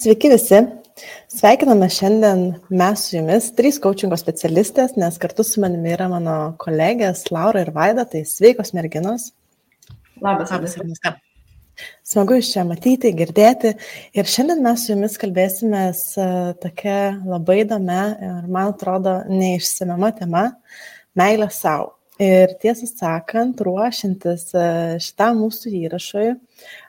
Sveiki visi. Sveikiname šiandien mes su jumis, 3 coachingo specialistės, nes kartu su manimi yra mano kolegės Laura ir Vaida, tai sveikos merginos. Labas, Ernesta. Smagu iš čia matyti, girdėti. Ir šiandien mes su jumis kalbėsimės tokia labai įdomia ir, man atrodo, neišsemiama tema – meilė sau. Ir tiesą sakant, ruošiantis šitam mūsų įrašui,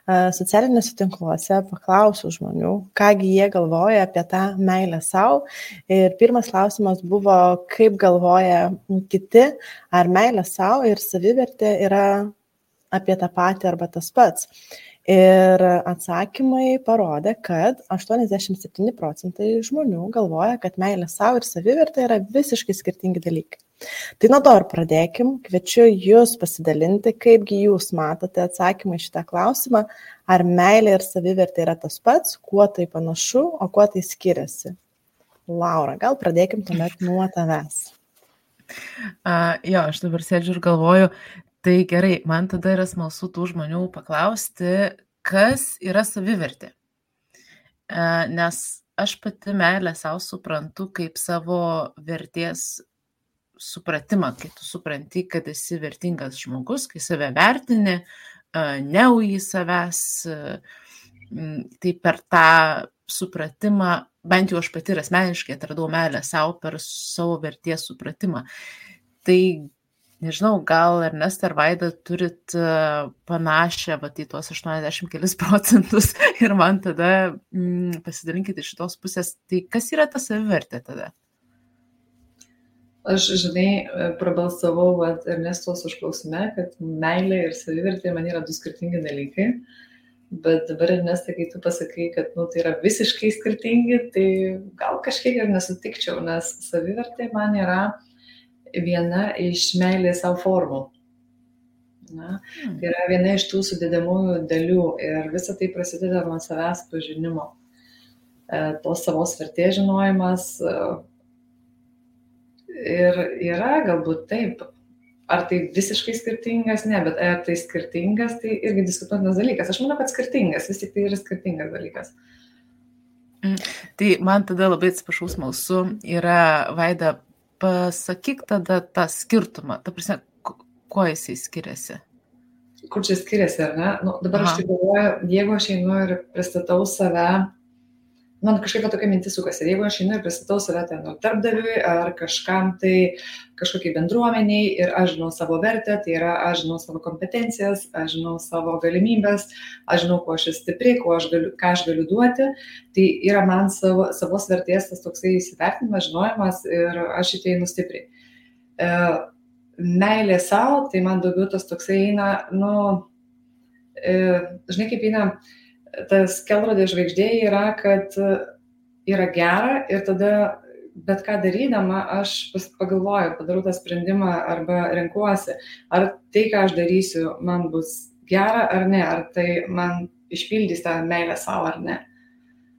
socialiniuose tinkluose paklausiau žmonių, kągi jie galvoja apie tą meilę sau. Ir pirmas klausimas buvo, kaip galvoja kiti, ar meilė sau ir savivertė yra apie tą patį arba tas pats. Ir atsakymai parodė, kad 87% žmonių galvoja, kad meilė sau ir savivertė yra visiškai skirtingi dalykai. Tai nuo to ir pradėkim. Kviečiu jūs pasidalinti, kaipgi jūs matote atsakymą į šitą klausimą, ar meilė ir savivertė yra tas pats, kuo tai panašu, o kuo tai skiriasi. Laura, gal pradėkim tuomet nuo tavęs. Aš dabar sėdžiu ir galvoju, tai gerai, man tada yra smalsu tų žmonių paklausti, kas yra savivertė. Nes aš pati meilę savo suprantu kaip savo vertės supratimą, kai tu supranti, kad esi vertingas žmogus, kai save vertini, neuji savęs, tai per tą supratimą, bent jau aš pati ir asmeniškai atradau meilę savo per savo vertės supratimą. Tai nežinau, gal Ernesta ar Vaida turit panašią į tuos 80 kelis procentus ir man tada pasidalinkite iš šitos pusės, tai kas yra ta savivertė tada? Aš, prabalsavau Ernestos užklausime, kad meilė ir savivertė man yra 2 skirtingi dalykai, bet dabar Ernesta, kai tu pasakai, kad tai yra visiškai skirtingi, tai gal kažkiek ir nesutikčiau, nes savivertė man yra viena iš meilės savo formų. Tai yra viena iš tų sudedamųjų dalių ir visa tai prasideda nuo savęs pažinimo. Tos savos vertės žinojimas ir yra galbūt taip. Ar tai visiškai skirtingas? Ne, bet ar tai skirtingas, tai irgi diskutuotinas dalykas. Aš manau, kad skirtingas, vis tik tai yra skirtingas dalykas. Tai man tada labai atsiprašau smalsu yra, Vaida, pasakyk tada tą skirtumą, ta prasme, kuo jisai skiriasi? Kur čia skiriasi, ar ne? Dabar aš tai galvoju, jeigu aš einu ir pristatau save, man kažkaip tokia mintis sukasi, jeigu aš einu ir pristatau save ten darbdaviui ar kažkam tai kažkokiai bendruomeniai ir aš žinau savo vertę, tai yra aš žinau savo kompetencijas, aš žinau savo galimybės, aš žinau, kuo aš esu stipri, ką aš galiu duoti, tai yra man savos vertės tas toksai įsivertinimas, žinojimas ir aš į tai einu stipriai. Meilė savo, tai man daugiau tas toksai eina, žinai kaip eina, tas kelrodė žvaigždė yra, kad yra gera ir tada bet ką darydama aš pagalvoju, padarau tą sprendimą arba renkuosi, ar tai, ką aš darysiu, man bus gera ar ne, ar tai man išpildys tą meilę savo ar ne,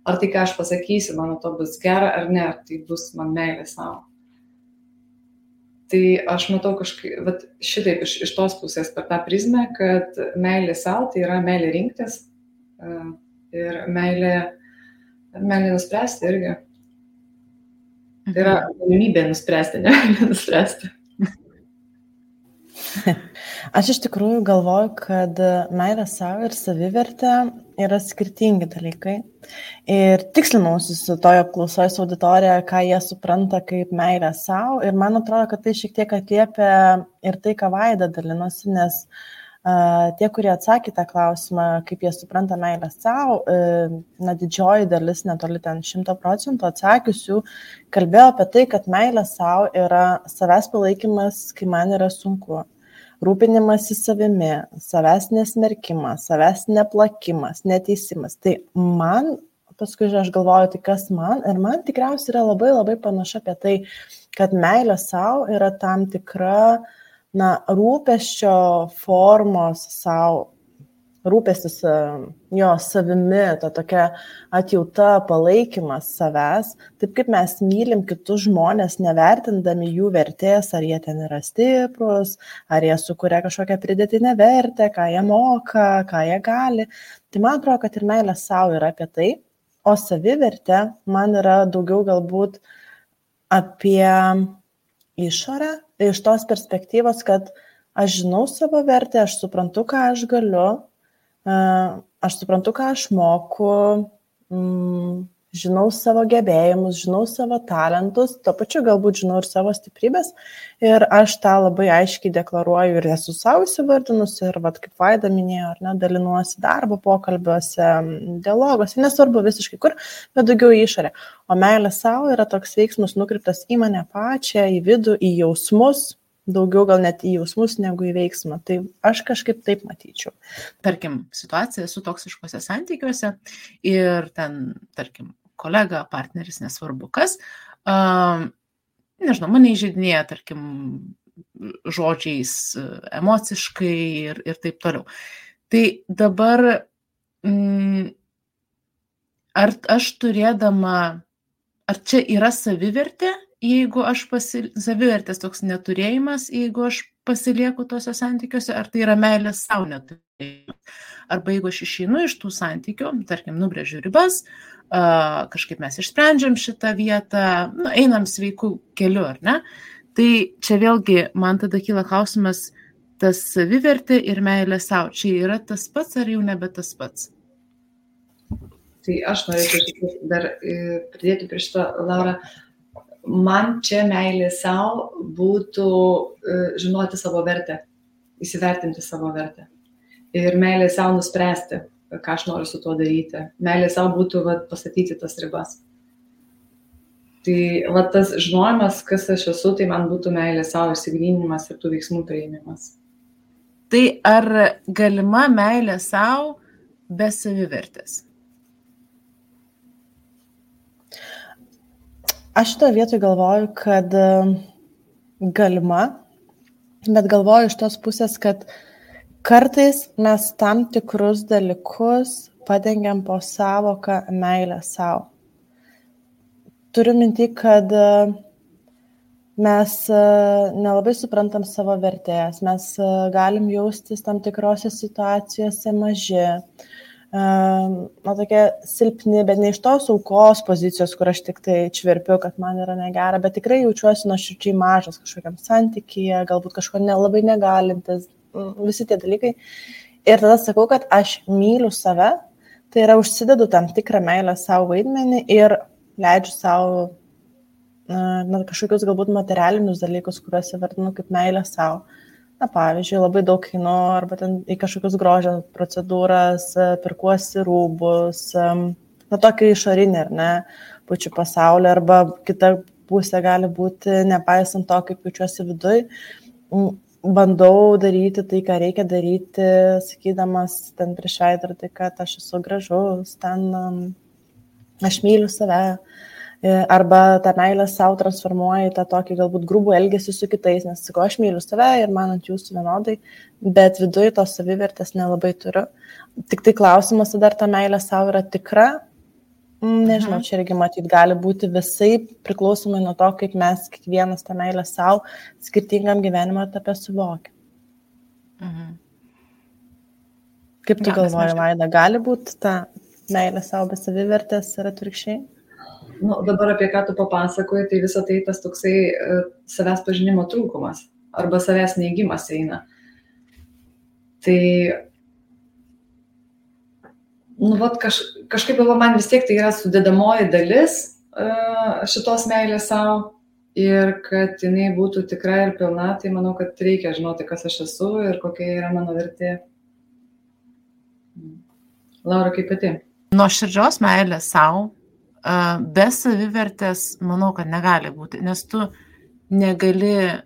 ar tai, ką aš pasakysiu, man to bus gera ar ne, ar tai bus man meilė savo. Tai aš matau kažkaip, šitaip iš tos pusės per tą prizmę, kad meilė savo tai yra meilė rinktis, ir meilė nuspręsti irgi. Tai yra galimybė nuspręsti, ne meilė nuspręsti. Aš iš tikrųjų galvoju, kad meilė savo ir savivertė yra skirtingi dalykai. Ir tikslinausi su toje apklausoje su auditorija, ką jie supranta kaip meilė savo. Ir man atrodo, kad tai šiek tiek atliepia ir tai, ką Vaida dalinosi, nes tie, kurie atsakė tą klausimą, kaip jie supranta meilę savo, didžioji dalis, netoli ten 100% atsakiusių, kalbėjo apie tai, kad meilė savo yra savęs palaikymas, kai man yra sunku, rūpinimasis savimi, savęs nesmerkimas, savęs neplakimas, neteisimas. Tai man, paskui aš galvoju, tai kas man, ir man tikriausiai yra labai labai panašu apie tai, kad meilė savo yra tam tikra rūpesčio formos savo, rūpestis jo savimi, ta tokia atjauta, palaikymas savęs, taip kaip mes mylim kitus žmonės, nevertindami jų vertės, ar jie ten yra stiprus, ar jie sukuria kažkokią pridėtinę vertę, ką jie moka, ką jie gali. Tai man atrodo, kad ir meilė savo yra apie tai, o savivertė man yra daugiau galbūt apie išorę, iš tos perspektyvos, kad aš žinau savo vertę, aš suprantu, ką aš galiu, aš suprantu, ką aš moku, žinau savo gebėjimus, žinau savo talentus, tuo pačiu galbūt žinau ir savo stiprybės ir aš tą labai aiškiai deklaruoju ir esu savo įsivardinusi ir, kaip Vaida minėjo, ar ne, dalinuosi darbo pokalbiuose, dialoguose, nesvarbu visiškai kur, bet daugiau į išorę. O meilė savo yra toks veiksmas nukreiptas į mane pačią, į vidų, į jausmus, daugiau gal net į jausmus negu į veiksmą. Tai aš kažkaip taip matyčiau. Tarkim, situacija su toksiškose santykiuose ir ten, tarkim, kolega, partneris, nesvarbu kas, nežinau, mane įžeidinėja, tarkim, žodžiais, emociškai ir taip toliau. Tai dabar, ar aš turėdama, ar čia yra savivertė, jeigu aš savivertės toks neturėjimas, jeigu aš pasilieku tose santykiuose, ar tai yra meilės savo neturėjimas. Arba jeigu aš išeinu iš tų santykių, tarkim, nubrėžiu ribas, kažkaip mes išsprendžiam šitą vietą, einam sveikų keliu, ar ne? Tai čia vėlgi man tada kyla klausimas, tas savivertė ir meilė savo, čia yra tas pats ar jau nebe tas pats? Tai aš norėčiau dar pridėti prie šito, Laura. Man čia meilė savo būtų žinoti savo vertę, įsivertinti savo vertę. Ir meilė savo nuspręsti, ką aš noriu su tuo daryti. Meilė savo būtų pastatyti tas ribas. Tai tas žinojimas, kas aš esu, tai man būtų meilė savo išsigryninimas ir tų veiksmų priėmimas. Tai ar galima meilė savo be savivertės? Aš šitoje vietoje galvoju, kad galima, bet galvoju iš tos pusės, kad kartais mes tam tikrus dalykus padengiam po savoką meilę savo. Turiu minty, kad mes nelabai suprantam savo vertės, mes galim jaustis tam tikrose situacijose maži, tokie silpni, bet ne iš tos aukos pozicijos, kur aš tik tai čverpiu, kad man yra negera, bet tikrai jaučiuosi nuoširdžiai mažas kažkokiam santykyje, galbūt kažko nelabai negalintis, visi tie dalykai. Ir tada sakau, kad aš myliu save, tai yra užsidedu tam tikrą meilę savo vaidmenį ir leidžiu savo kažkokius galbūt materialinius dalykus, kuriuos įvardinu kaip meilę savo. Pavyzdžiui, labai daug einu arba ten į kažkokius grožio procedūras, pirkuosi rūbus, tokį išorinį, ar ne, pučiu pasaulį, arba kita pusė gali būti, nepaisant to, kaip jaučiuosi viduj, bandau daryti tai, ką reikia daryti, sakydamas ten prieš veidrodį, kad aš esu gražus, ten aš myliu save. Arba tą meilę savo transformuoja į tą tokį galbūt grubų elgesį su kitais, nes sakau, aš myliu save ir man ant jūsų vienodai, bet viduje tos savivertės nelabai turiu. Tik tai klausimas, ar ta meilė savo yra tikra, nežinau, čia irgi matyt gali būti visai priklausomai nuo to, kaip mes kiekvienas tą meilę savo skirtingam gyvenimo etape suvokia. Kaip tu galvoji, Vaida, gali būti ta meilė savo be savivertės ir atvirkščiai? Dabar apie ką tu papasakoji, tai visą tai tas toksai savęs pažinimo trūkumas arba savęs neigimas eina. Tai, kažkaip man vis tiek tai yra sudedamoji dalis šitos meilės savo ir kad jinai būtų tikra ir pilna, tai manau, kad reikia žinoti, kas aš esu ir kokia yra mano vertė. Laura, kaip pati? Nuoširdžios meilės savo be savivertės, manau, kad negali būti, nes tu negali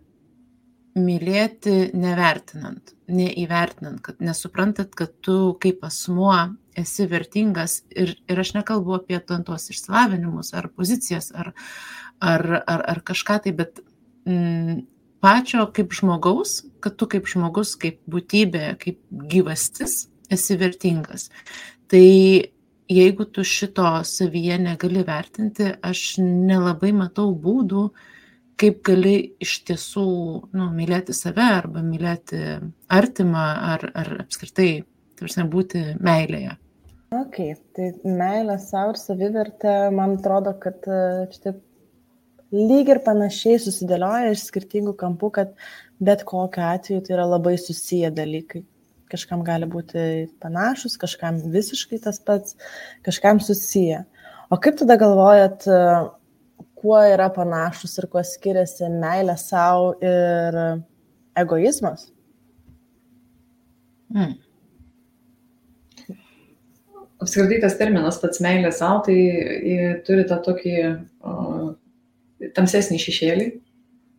mylėti nevertinant, neįvertinant, kad nesuprantat, kad tu kaip asmuo esi vertingas ir aš nekalbu apie tuos išsilavinimus ar pozicijas ar kažką tai, bet pačio kaip žmogaus, kad tu kaip žmogus, kaip būtybė, kaip gyvastis esi vertingas. Tai jeigu tu šito savyje negali vertinti, aš nelabai matau būdų, kaip gali iš tiesų mylėti save arba mylėti artimą ar apskritai būti meilėje. Okay, tai meilė savo ir savivertė, man atrodo, kad štai lyg ir panašiai susidėlioja iš skirtingų kampų, kad bet kokiu atveju tai yra labai susiję dalykai. Kažkam gali būti panašus, kažkam visiškai tas pats, kažkam susiję. O kaip tada galvojat, kuo yra panašus ir kuo skiriasi meilė savo ir egoizmas? Apskritai tas terminas pats meilė savo, tai turi tą tokį tamsesnį šešėlį,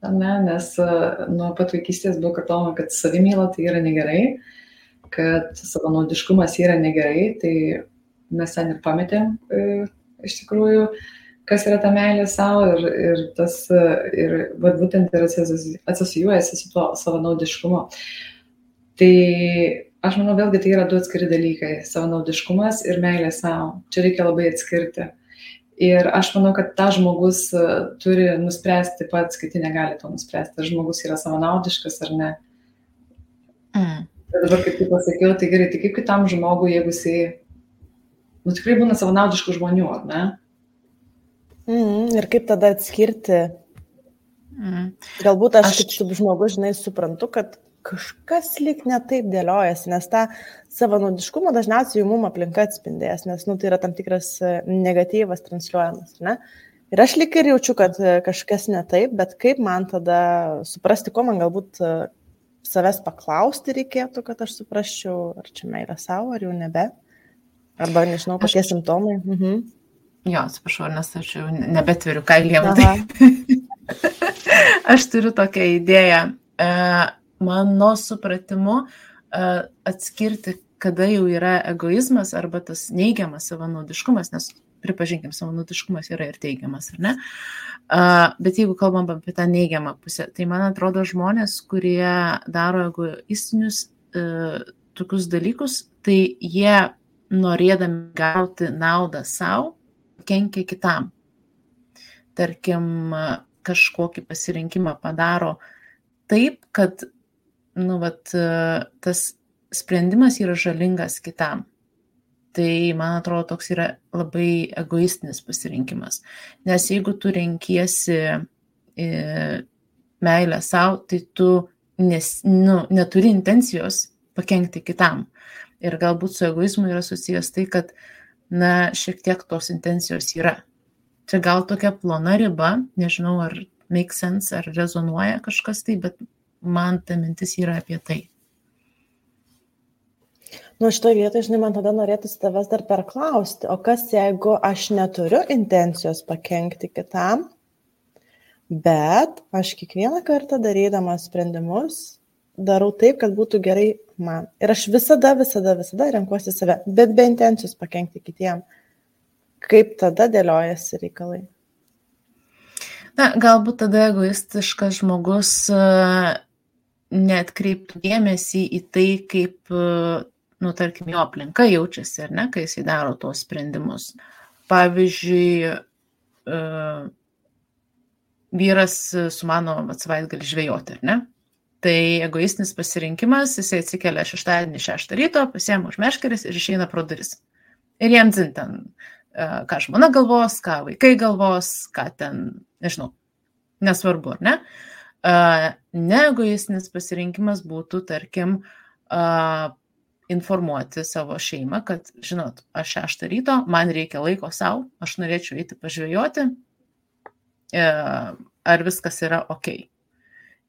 ne? Nes nuo pat vaikystės buvo kartojama, kad savimyla tai yra negerai, kad savanaudiškumas yra negerai, tai mes ten ir pametėm iš tikrųjų, kas yra ta meilė savo ir tas ir būtent ir asocijuojasi su tuo savanaudiškumu. Tai aš manau, vėlgi tai yra du atskiri dalykai - savanaudiškumas ir meilė savo. Čia reikia labai atskirti. Ir aš manau, kad tą žmogus turi nuspręsti pats, kiti negali to nuspręsti, ar žmogus yra savanaudiškas ar ne. Bet dabar, kaip tu pasakiau, tai gerai, tai kaip kitam žmogui, jeigu jisai, tikrai būna savanaudiškų žmonių, ar ne? Ir kaip tada atskirti? Galbūt aš kaip žmogus, žinai, suprantu, kad kažkas lyg netaip dėliojasi, nes tą savanaudiškumą dažniausiai mum aplinka atspindės, nes tai yra tam tikras negatyvas transliuojamas, ne? Ir aš lyg ir jaučiu, kad kažkas netaip, bet kaip man tada suprasti, ko man galbūt savęs paklausti reikėtų, kad aš suprasčiau, ar čia meilė savo, ar jau nebe, arba nežinau, kokie simptomai. Jo, atsiprašau, nes aš jau nebetveriu kailiem. Aš turiu tokią idėją. Mano supratimu atskirti, kada jau yra egoizmas arba tas neigiamas savanaudiškumas, nes pripažinkim, savanaudiškumas yra ir teigiamas, ar ne? Bet jeigu kalbam apie tą neigiamą pusę, tai man atrodo žmonės, kurie daro egoistinius tokius dalykus, tai jie norėdami gauti naudą savo, kenkia kitam. Tarkim, kažkokį pasirinkimą padaro taip, kad tas sprendimas yra žalingas kitam. Tai, man atrodo, toks yra labai egoistinis pasirinkimas. Nes jeigu tu renkiesi meilę savo, tai tu neturi intencijos pakenkti kitam. Ir galbūt su egoizmu yra susijęs tai, kad šiek tiek tos intencijos yra. Čia gal tokia plona riba, nežinau, ar make sense, ar rezonuoja kažkas tai, bet man ta mintis yra apie tai. Šitoje vietoje, žinai, man tada norėtųsi tavęs dar perklausti, o kas jeigu aš neturiu intencijos pakenkti kitam, bet aš kiekvieną kartą darydamas sprendimus darau taip, kad būtų gerai man. Ir aš visada renkuosi save, bet be intencijos pakenkti kitiem. Kaip tada dėliojasi reikalai? Galbūt tada egoistiškas žmogus neatkreiptų dėmesį į tai, kaip, tarkim, jo aplinka jaučiasi, ar ne, kai jisai daro tuos sprendimus. Pavyzdžiui, vyras sumano savaitgalį žvejoti, ar ne? Tai egoistinis pasirinkimas, jisai atsikelia šeštadienį 6 ryto, pasiema už meškerės ir išeina pro duris. Ir jam dzin ten, ką žmona galvos, ką vaikai galvos, ką ten, nežinau, nesvarbu, ar ne? Neegoistinis pasirinkimas būtų, tarkim, informuoti savo šeimą, kad, žinot, aš 6 ryto, man reikia laiko savo, aš norėčiau eiti pažvejoti, ar viskas yra ok.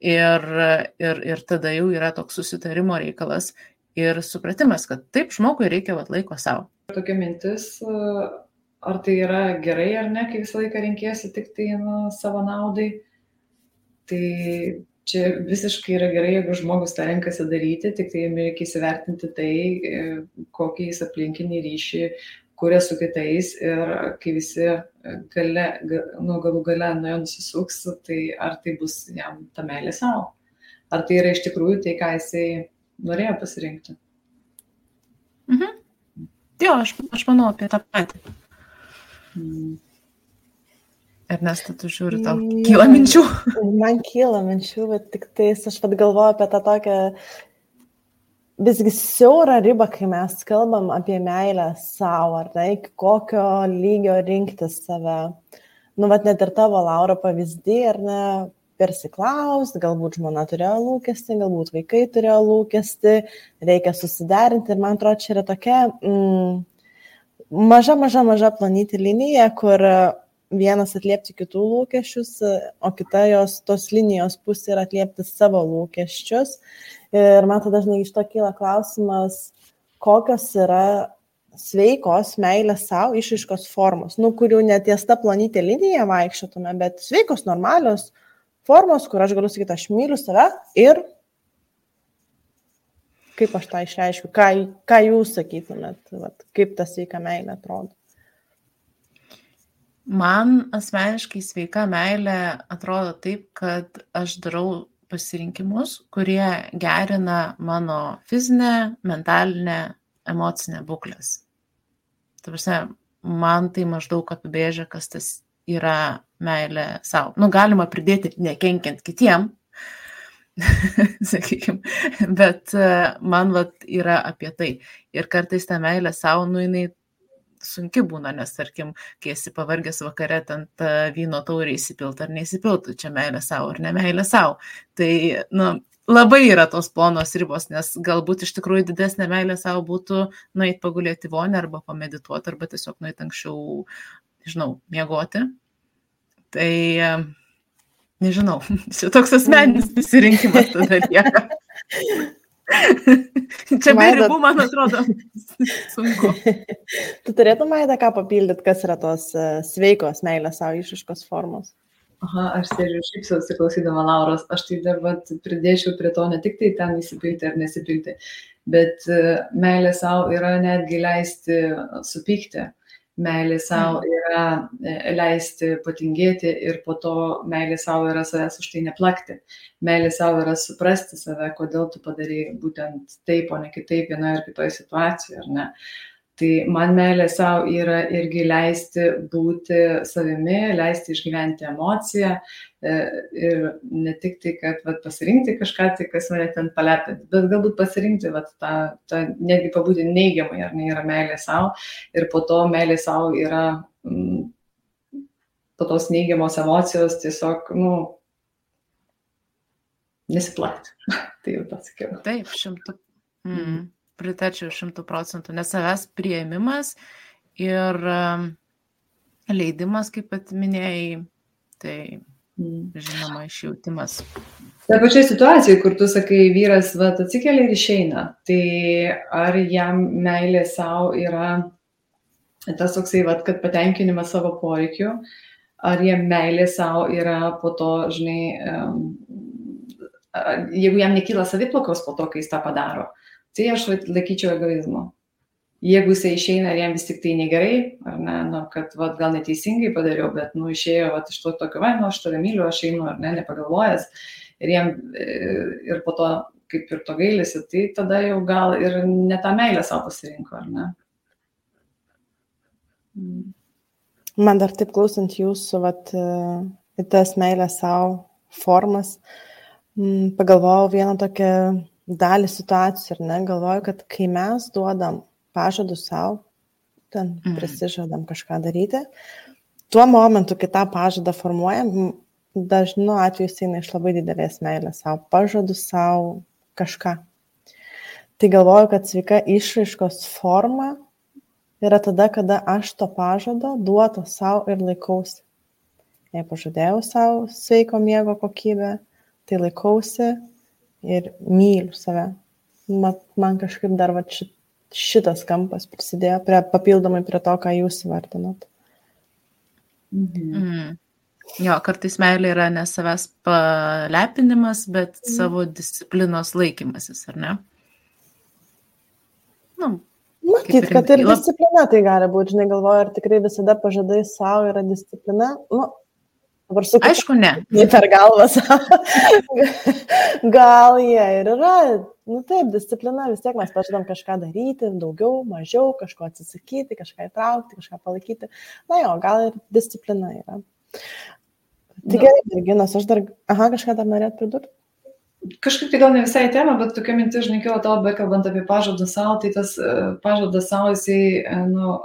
Ir tada jau yra toks susitarimo reikalas ir supratimas, kad taip žmogui reikia laiko savo. Tokia mintis, ar tai yra gerai ar ne, kai visą laiką renkėsi tik tai savo naudai, tai čia visiškai yra gerai, jeigu žmogus tą renkasi daryti, tik tai reikia įsivertinti tai, kokį jis aplinkinį ryšį kuria su kitais ir kai visi galų gale nuo jo nusisuks, tai ar tai bus jam ta meilė savo? Ar tai yra iš tikrųjų tai, ką jisai norėjo pasirinkti? Jo, aš manau apie tą patį. Ernesta, tu žiūri, tau kyla minčių? Man kyla minčių, bet tik tais aš galvoju apie tą tokią visgi siaura riba, kai mes kalbam apie meilę savo, ar ne, iki kokio lygio rinktis save. Nu, vat net ir tavo, Laura, pavyzdį, ar ne, persiklaust, galbūt žmona turėjo lūkestį, galbūt vaikai turėjo lūkestį, reikia susiderinti ir man atrodo, čia yra tokia maža planytė linija, kur vienas atliepti kitų lūkesčius, o kita tos linijos pusė yra atliepti savo lūkesčius. Ir man tada dažnai iš to kyla klausimas, kokios yra sveikos meilės savo išraiškos formos, kurių neties ta plonytė linija vaikščiotume, bet sveikos, normalios formos, kur aš galiu sakyti, aš myliu save ir kaip aš tą išreiškiu, ką jūs sakytumėt, kaip ta sveika meilė atrodo. Man asmeniškai sveika meilė atrodo taip, kad aš darau pasirinkimus, kurie gerina mano fizinę, mentalinę, emocinę būklės. Ta prasme, man tai maždaug apibrėžia, kas tas yra meilė savo. Galima pridėti nekenkiant kitiem, sakykime, bet man yra apie tai. Ir kartais ta meilė savo, jinai sunki būna, nes, tarkim, kai esi pavargęs vakare, ten vyno taurį įsipilt ar neįsipiltų, čia meilė savo ar ne meilė savo. Tai, labai yra tos plonos ribos, nes galbūt iš tikrųjų didesnė meilė savo būtų nueit pagulėti vonę arba pamedituoti, arba tiesiog nueit anksčiau, miegoti. Tai, nežinau, čia toks asmeninis pasirinkimas tada lieka. Čia be ribų, man atrodo, sunku. Tu turėtum, Maida, ką papildyti, kas yra tos sveikos meilės savo išraiškos formos? Aš sėdžiu šypsausi klausydama Lauros, aš tai dar pridėčiau prie to ne tik tai ten įsipilti ar nesipilti, bet meilė savo yra netgi leisti supykti. Meilė savo yra leisti patingėti ir po to meilė savo yra savęs už tai neplakti. Meilė savo yra suprasti save, kodėl tu padarai būtent taip, o ne kitaip vienoje ar kitoje situacijoje, ar ne. Tai man meilė savo yra irgi leisti būti savimi, leisti išgyventi emociją ir ne tik tai, kad pasirinkti kažką, tai kas mane ten palepinti, bet galbūt pasirinkti tą netgi pabūti neigiamai, ar ne, yra meilė savo ir po to meilė savo yra po tos neigiamos emocijos tiesiog, nesiplakti. Tai jau pasakiau. Taip, 100%. Pritačiau 100%, nes savęs priėmimas ir leidimas, kaip pat minėjai, tai žinoma išjautimas. Ta pačia situacija, kur tu sakai, vyras atsikelia ir išeina, tai ar jam meilė savo yra tas toksai, kad patenkinimas savo poreikių, ar jam meilė savo yra po to, jeigu jam nekyla saviplakos po to, kai jis tą padaro, tai aš laikyčiau egoizmu. Jeigu jisai išeina ir jam vis tik tai negerai, ar ne, kad gal neteisingai padariau, bet išėjo iš to tokio, aš tave myliu, aš einu, ar ne, nepagalvojęs, ir po to kaip ir to gailisi, tai tada jau gal ir ne tą meilę savo pasirinko, ar ne. Man dar taip klausant jūsų, į tas meilės savo formas, pagalvojau vieną tokią dalį situacijų, ar ne, galvoju, kad kai mes duodam pažadus savo, ten prisižadam kažką daryti, tuo momentu, kai tą pažadą formuojam, dažnu atveju jis eina iš labai didelės meilės savo, pažadus savo kažką. Tai galvoju, kad sveika išraiškos forma yra tada, kada aš to pažado duoto savo ir laikausi. Jei pažadėjau savo sveiko miego kokybę, tai laikausi ir myliu save. Man kažkaip dar šitas kampas prisidėjo papildomai prie to, ką jūs įvardinot. Jo, kartais meilė yra ne savęs palepinimas, bet savo disciplinos laikymasis, ar ne? Matyt, kad ir disciplina tai gali būti, galvoju, ar tikrai visada pažadai savo yra disciplina. Aišku, ne. Per galvą savo. Gal jie ir yra. Taip, disciplina, vis tiek mes pažadam kažką daryti, daugiau, mažiau, kažko atsisakyti, kažką įtraukti, kažką palaikyti. Gal ir disciplina yra. Tai gerai, Virginas, aš dar, kažką dar norėt pridurti? Kažkaip tai gal ne visai tema, bet tokia mintis, žinai, kilo tavo, bekalbant apie pažadą savo, tai tas pažadas savo, jisai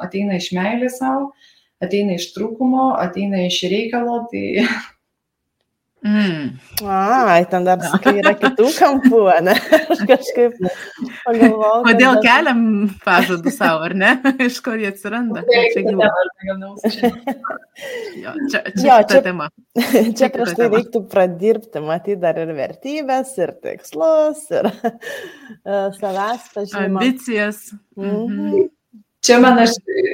ateina iš meilės savo, ateina iš trūkumo, ateina iš reikalo, tai... Ai, ten dar sakai, yra kitų kampų, ne? Aš kažkaip pagalvojau. Kodėl keliam pažadų savo, ar ne? Iš kur jie atsiranda? Čia tema. Čia prieš tai reiktų pradirbti, matyti dar ir vertybės, ir tikslus, ir savęs pažinimą. Ambicijas. Čia man aš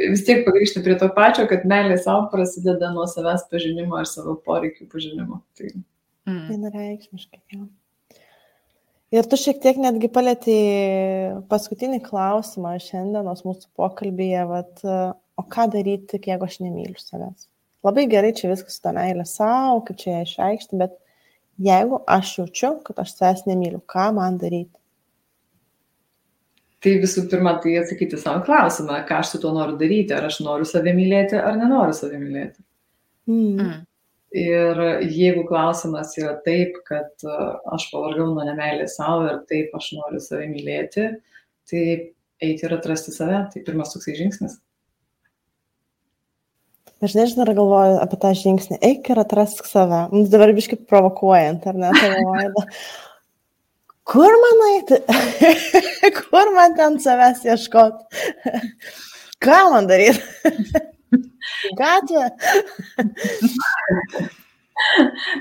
vis tiek pagrįžtu prie to pačio, kad meilė savo prasideda nuo savęs pažinimo ir savo poreikių pažinimo. Tai vienareikšmiškai, jo. Ir tu šiek tiek netgi palėtei paskutinį klausimą šiandienos mūsų pokalbyje, o ką daryti, jeigu aš nemyliu savęs? Labai gerai čia viskas su ta meilė savo, kaip čia ją išreikšti, bet jeigu aš jaučiu, kad aš savęs nemyliu, ką man daryti? Tai visų pirma, tai atsakyti savo klausimą, ką aš su tuo noriu daryti, ar aš noriu save mylėti, ar nenoriu save mylėti. Ir jeigu klausimas yra taip, kad aš pavargau nuo nemeilės savo ir taip aš noriu save mylėti, tai eiti ir atrasti save, tai pirmas toksai žingsnis. Aš nežinau, ar galvoju apie tą žingsnį, eik ir atrask save. Dabar biškai provokuojant, ar ne, tavo vaida. Kur man eiti? Kur man ten savęs ieškoti? Ką man daryti? Gatvė?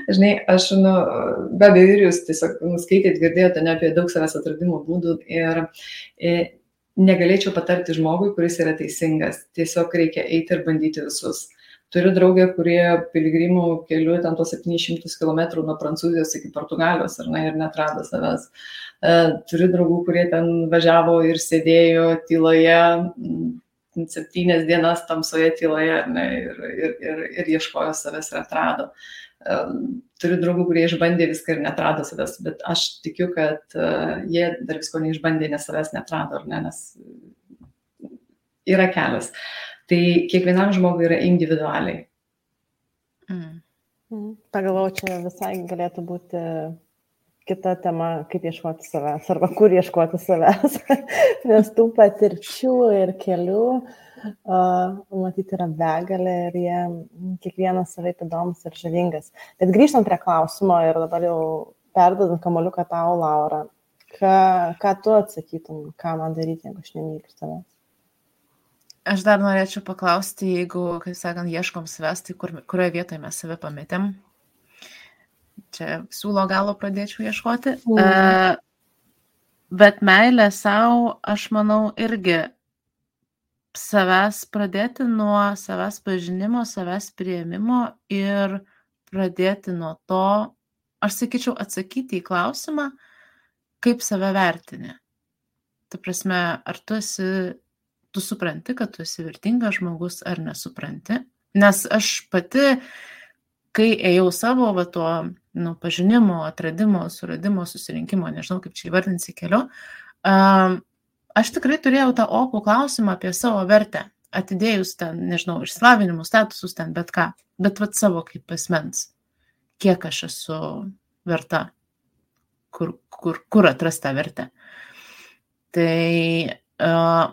Žinai, aš, be abejo, ir jūs tiesiog skaitėt, girdėjote ne apie daug savęs atradimo būdų ir negalėčiau patarti žmogui, kuris yra teisingas. Tiesiog reikia eiti ir bandyti visus. Turiu draugę, kurie piligrimų keliu ten tuos 700 km nuo Prancūzijos iki Portugalijos ir netrado savęs. Turiu draugų, kurie ten važiavo ir sėdėjo tyloje 7 dienas tamsoje tyloje ir ieškojo savęs ir atrado. Turiu draugų, kurie išbandė viską ir netrado savęs, bet aš tikiu, kad jie dar visko neišbandė, nes savęs netrado, nes yra kelias. Tai kiekvienam žmogui yra individualiai. Pagalvau, čia visai galėtų būti kita tema, kaip ieškoti savęs, arba kur ieškoti savęs, nes tų patirčių ir kelių, matyti, yra begalė ir jie kiekvienas savaip įdomus ir žavingas. Bet grįžtant prie klausimo ir dabar jau perdodant kamuoliuką tau, Laura, ką tu atsakytum, ką man daryti, jeigu aš nemyliu savęs? Aš dar norėčiau paklausti, jeigu, kaip sakant, ieškom savęs, tai kurioje vietoje mes save pametėm. Čia siūlo galo pradėčiau ieškoti. Bet meilė savo, aš manau, irgi savęs pradėti nuo savęs pažinimo, savęs priėmimo ir pradėti nuo to, aš sakyčiau, atsakyti į klausimą, kaip save vertini. Ta prasme, ar tu supranti, kad tu esi vertingas žmogus ar nesupranti. Nes aš pati, kai ėjau savo tuo pažinimo, atradimo, suradimo, susirinkimo, nežinau kaip čia įvardinsi keliu, aš tikrai turėjau tą opų klausimą apie savo vertę, atidėjus ten, nežinau, išsilavinimus, statusus ten, bet ką, bet savo kaip asmens, kiek aš esu verta, kur atrasti tą vertę. Tai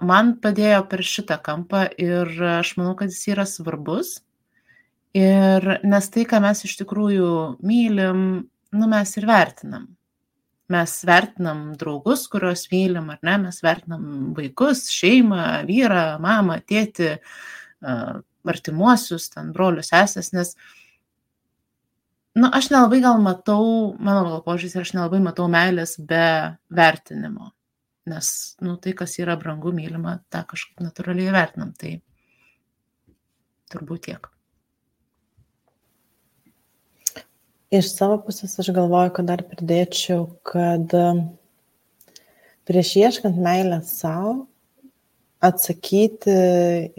man padėjo per šitą kampą ir aš manau, kad jis yra svarbus. Ir nes tai, ką mes iš tikrųjų mylim, mes ir vertinam. Mes vertinam draugus, kuriuos mylim, ar ne? Mes vertinam vaikus, šeimą, vyrą, mamą, tėtį, artimuosius, ten brolius, sesės, nes aš nelabai gal matau, mano gal požiūris, aš nelabai matau meilės be vertinimo. Nes, tai, kas yra brangu, mylima, tą kažkaip natūraliai vertinam. Tai turbūt tiek. Iš savo pusės aš galvoju, kad dar pridėčiau, kad prieš ieškant meilę savo, atsakyti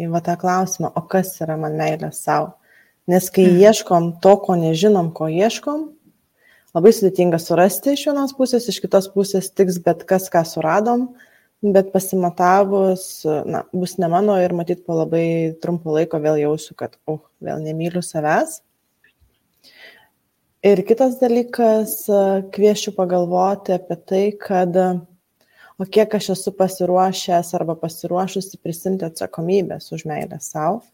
į tą klausimą, o kas yra man meilė savo. Nes kai ieškom to, ko nežinom, ko ieškom, labai sudėtinga surasti iš vienos pusės, iš kitos pusės tiks bet kas, ką suradom, bet pasimatavus, bus ne mano ir matyt po labai trumpo laiko vėl jausiu, kad vėl nemyliu savęs. Ir kitas dalykas, kviesčiau pagalvoti apie tai, kad o kiek aš esu pasiruošęs arba pasiruošusi prisimti atsakomybės už meilę savo,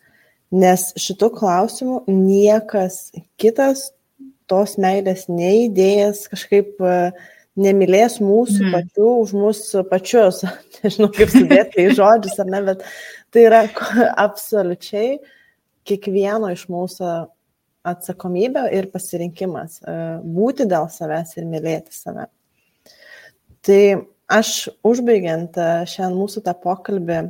nes šitų klausimų niekas kitas tos meilės neįdėjęs kažkaip nemylės mūsų pačių už mūsų pačius. Nežinau, kaip sudėti į žodžius ar ne, bet tai yra absoliučiai kiekvieno iš mūsų atsakomybė ir pasirinkimas būti dėl savęs ir mylėti save. Tai aš užbaigiant šiandien mūsų tą pokalbį,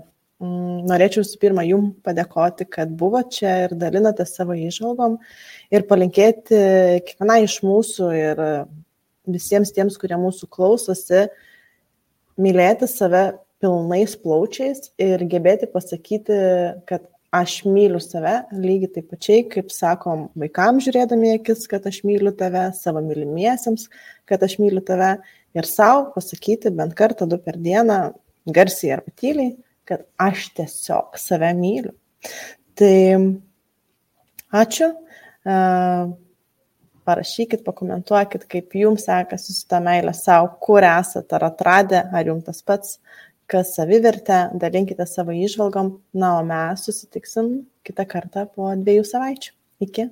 norėčiau visų pirma jums padėkoti, kad buvo čia ir dalinate savo įžvalgom ir palinkėti kiekvienai iš mūsų ir visiems tiems, kurie mūsų klausosi, mylėti save pilnais plaučiais ir gebėti pasakyti, kad aš myliu save lygiai taip pačiai, kaip sakom vaikams žiūrėdami akis, kad aš myliu tave, savo mylimiesiems, kad aš myliu tave ir savo pasakyti bent kartą 2 per dieną, garsiai arba tyliai, kad aš tiesiog save myliu. Tai ačiū, parašykit, pakomentuokit, kaip jums sekasi su ta meilė savo, kur esate, ar atradę, ar jums tas pats, kas savivertė, dalinkite savo įžvalgom, na, o mes susitiksim kitą kartą po 2 savaičių. Iki.